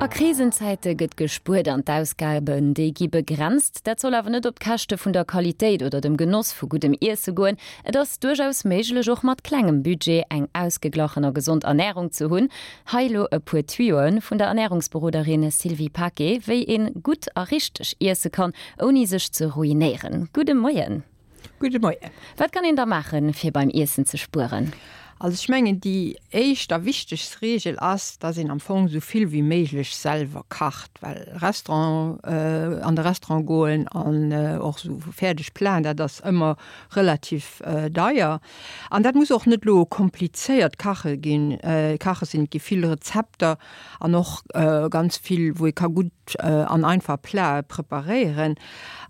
A Krisenzäite gëtt gespuert an d'Ausgaben, déi gi begrenzt. Dat soll awer net op d'Käschte vun der Qualitéit oder dem Genoss vu guddem Iesse goen. Et ass duerchaus méiglech, och mat klengem Budget eng ausgeglachen a gesond Ernärung ze hunn. Hei elo e puer Tuyoe vun der Ernärungsberoderin Sylvie Paquet, wéi een gutt a richteg iesse kann, ouni sech ze ruinéieren. Gudde Moien! Gudde Moien. Wat kann een da maachen, fir beim Iessen ze spueren? Also ech mengen déi éischt a wichtegst Reegel ass, dass een am Fong esou vill wéi méiglech selwer kacht, well Restaurant, an de Restaurant goen an och esou fäerdeg Platen, dat ass ëmmer relativ deier. An dat muss och net elo komplizéiert kache ginn, kache sinn. Et gi vill Rezepter an och ganz vill, wou ee ka gutt an einfach Platë preparéieren.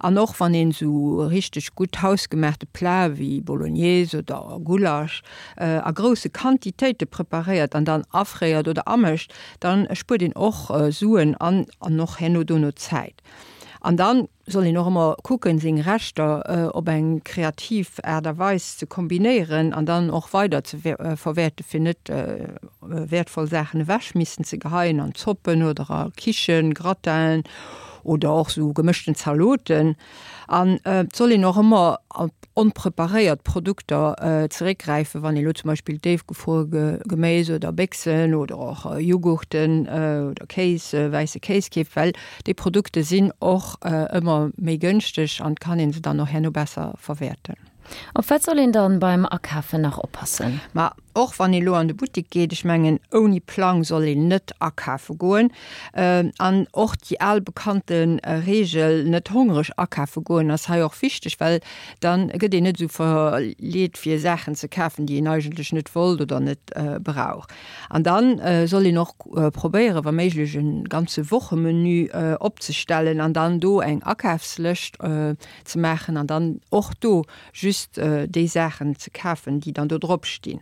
An och wann een esou richteg gutt hausgemaachte Platë wéi Bolognese oder Gulasch a grousse Quantitéite preparéiert an dann afréiert oder amécht, dann spuert een och Suen an an och herno dono Zäit. An dann soll een och ëmmer kucken, seng Reschter op eng kreativ Aart a Weis ze kombinéieren an dann och weider ze verwäerten, fir net wäertvoll Saachen ewech missen ze geheien an Zoppen oder a Quichen, Gratinen oder och sou gemëschten Zaloten. An et soll een och ëmmer op onpreparéiert Produkter zeréckgräifen, wann ee lo zum Beispill déifgefruere Geméis oder Béchsen oder och Jughurten oder Kéis, wäisse Kéis keeft, well déi Produkte sinn och ëmmer méi gënschteg an et kann ee se dann och herno besser verwäerten. Op wat soll een dann beim Akafen nach oppassen? Ma och wann ee lo an de Buttik geet, ech mengen ouni Plang soll een net akafe goen. An och déi al bekannte Reegel, net hongreg akafe goen, ass hei och wichteg, well dann gëtt een net esou verleet fir Saachen ze kafen, déi een eigentlech net wollt oder net brauch. An dann soll een och probéieren, wa méiglech e ganze Wochemenu opzestellen an dann do eng Akafslëscht ze maachen an dann och do just déi Saachen ze kafen, déi dann do drop stinn.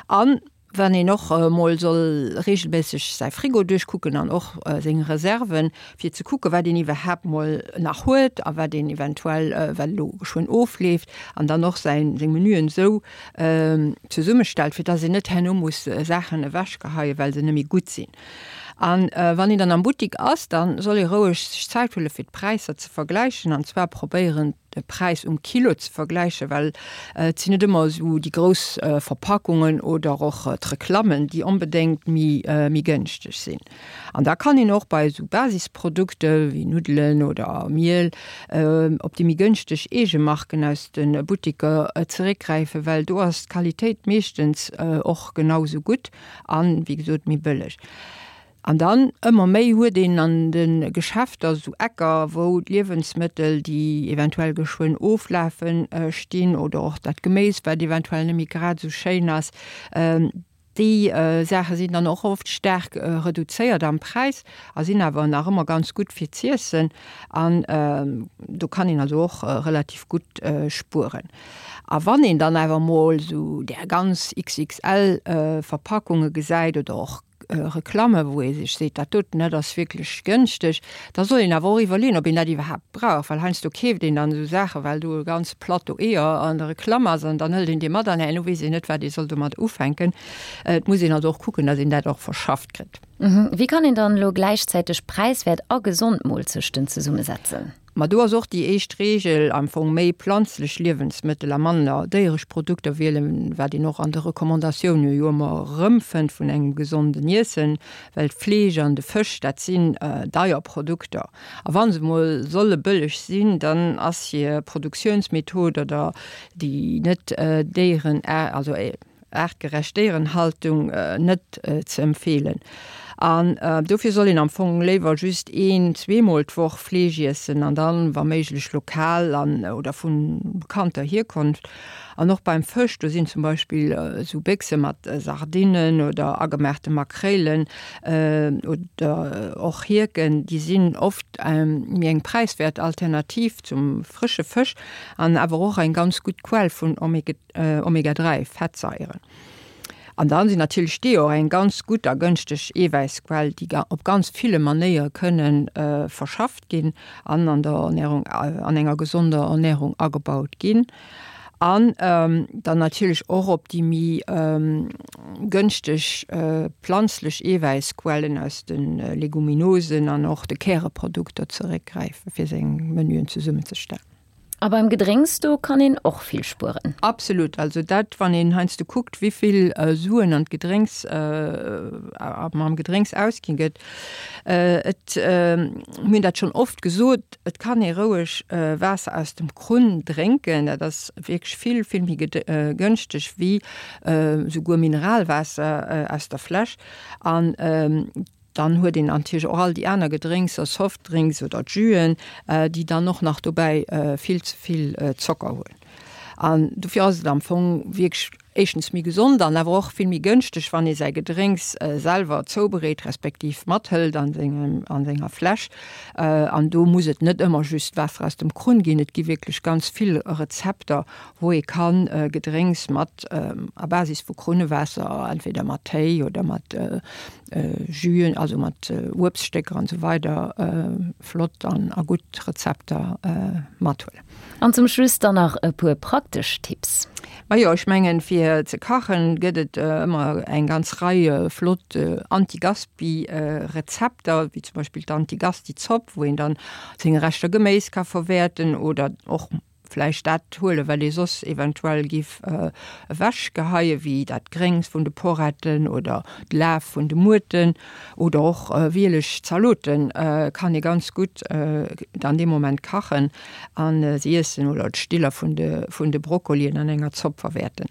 An wann een och emol soll regelméisseg säi Frigo duerchkucken an och seng Reserven, fir ze kucken, wat een iwwerhaapt mol nach huet a wat een eventuell, wat elo geschwënn ofleeft, an dann och säin, seng Menüen esou zesummestellt, fir dass een net herno muss Saachen ewechgeheien, well se net méi gutt sinn. An wann een dann am Buttik ass, da soll ee roueg sech Zäit huele fir d'Präisser ze vergläichen, an zwar probéieren de Präis um Kilo ze vergläichen, well et sinn net ëmmer esou déi grouss Verpackungen oder och d'Reklammen, déi onbedéngt méi méi gënschteg sinn. An da kann een och bei esou Basisprodukte wéi Nuddelen oder Miel op déi méi gënschteg Eegemarken aus de Buttiker zeréckgräifen, well do ass d'Qualitéit meeschtens och genau esou gutt an, wéi gesot, méi bëlleg. An dann, ëmmer méi huet een an de Geschäfter esou Ecker, wou d'Liewensmëttel, déi eventuell geschwënn oflafen, stinn oder och dat Geméis, wat eventuell net méi grad esou schéin ass. Déi Saache sinn dann och oft staark reduzéiert am Präis a sinn awer nach ëmmer ganz gutt fir z'iessen. An do kann een also och relativ gutt spueren. A wann een dann awer mol esou där ganz XXL Verpackunge gesäit oder och Reklamme wou ee sech seet, dat doten, dat ass wierklech gënschteg, da soll een awer och iwwerleeën, ob een dat iwwerhaapt brauch, well heiansdo keeft een dann esou Saachen, well do e ganze Plateau Eeër an der Reklamm ass an dann hëlt een dee mat an herno weess een net, wat ee soll domat ufänken. Et muss een also och kucken, datt een dat och verschafft kritt. Wéi kann een dann elo gläichzäiteg präiswäert a gesond Moolzechten zesummesetzen? Ma do ass och déi éischt Reegel am Fong, méi planzlech Liewensmëttel a manner déieresch Produkter wielen, wat een och an de Recommandatioune jo ëmmer erëmfënnt vun engem gesonden Iessen, well d'Fleesch an de Fësch, dat sinn deier Produkter. A wa se mol solle bëlleg sinn, dann ass hir Produktiounsmethod oder déi net déieren, also Aartgerecht Déierenhaltung net ze empfeelen. An dofir soll een am Fong léiwer just een, zweemol d'Woch Fleesch iessen an dann wa méiglech lokal an oder vu bekannter Hierkonft. An och beim Fësch, do sinn zum Beispill esou Béchse mat Sardinnen oder agemaachte Makréilen oder och Hierken, déi sinn oft méi eng präiswäert Alternativ zum frësche Fësch an awer och eng ganz gutt Quell vun Omega Omega 3 Fettsaieren. An dann sinn natierlech d'Eeër och eng ganz gutt a gënschteg Eewäissquell, déi op ganz ville Manéiere kënne verschafft ginn an an der Ernärung, an enger gesonder Ernärung agebaut ginn. An dann natierlech och op déi méi gënschteg planzlech Eewäissquellen aus de Leguminosen an och de Käreprodukter zeréckgräifen, fir seng Menüen zesummenzestellen. A beim Gedrénks, do kann een och vill spueren. Absolut. Also dat, wann een heiansdo kuckt, wéivill Suen an d'Gedrénks, am Gedrénks ausginn gëtt. Et, mir hunn dat schonn oft gesot, et kann ee roueg Waasser aus dem Krunn drénken. Dat ass wierklech vill, vill méi gënschteg wéi souguer Mineralwaasser aus der Fläsch. An Dann huet een natierlech och all déi aner Gedrénkser, Softdrinks oder Jüen, déi dann och nach dobäi vill ze vill Zocker hunn. An dofir ass et am Fong wierklech éischtens méi gesond an awer och vill méi gënschteg, wann ee säi Gedrénks selwer zoubereet, respektiv mathëlt an sengem, an senger Fläsch. An do muss et net ëmmer just Waasser aus dem Krunn ginn. Et gi wierklech ganz vill Rezepter, wou ee kann Gedrénks mat a Basis vu Krunnewaasser, entweder mat Téi oder mat Jüen, also mat Uebststécker an esou weider flott an a gutt Rezepter mathuelen. An zum Schluss dann nach e puer praktesch Tipps. Majo, ech mengen fir ze kachen gëtt et ëmmer eng ganz Rei flott Anti-Gaspi Rezepter, wéi zum Beispill d'Anti-Gasti-Zopp, wou een dann seng Reschter Geméis ka verwäerten oder och vläicht dat huelen, wat ee soss eventuell giff ewechgeheien, wéi dat Gréngs vun de Poretten oder d'Laf vun de Muerten oder och wieleg Zaloten kann ee ganz gutt dann dee Moment kachen a se iessen oder d'Stiller vun de vun de Brokkolien an enger Zopp verwäerten.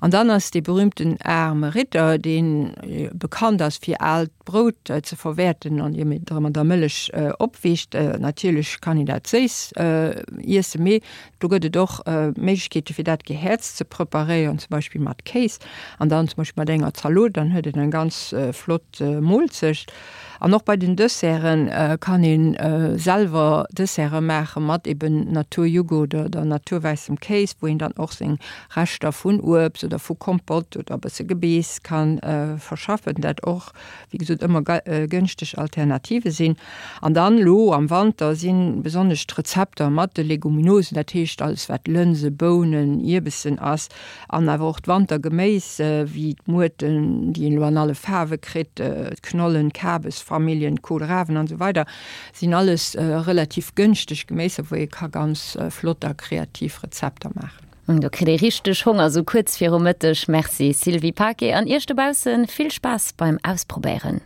An dann ass dee berühmten aarme Ritter, dee bekannt ass fir aalt Brout ze verwäerten an ier et mat der Mëllech opwiicht. Natierlech kann een dat séiss iessen, mee do gëtt et och Méiglechkeete fir dat gehäerzt ze preparéieren, zum Beispill mat Kéis an dann zum Beispill mat enger Zalot, dann huet een eng ganz flott Moolzecht. An och bei den Desserte kann ee selwer Desserte maache mat eben Naturjoghurt oder naturwäissem Kéis, wou een dann och seng Reschter vun Uebst oder vu Kompott oder e bësse Gebeess ka verschaffen, dat och, wéi gesot, ëmmer gënschteg Alternative sinn. An dann elo am Wanter si besonnesch d'Rezepter mat de Leguminosen, dat heescht alles wat Lënse, Bounen, Ierbessen ass, an awer och d'Wantergeméis, wéi d'Muerten, déi een elo an alle Faarwe kritt, d'Knollen, d'Kabesfamilljen, d'Kohlrawen an esou weider, sinn alles relativ gënschteg Geméiser, wou ee ka ganz flott a kreativ Rezepter maachen. Do kritt ee richteg Honger sou kuerz viru Mëtteg. Merci Sylvie Paquet an Iech dobaussen vill Spaass beim Ausprobéieren.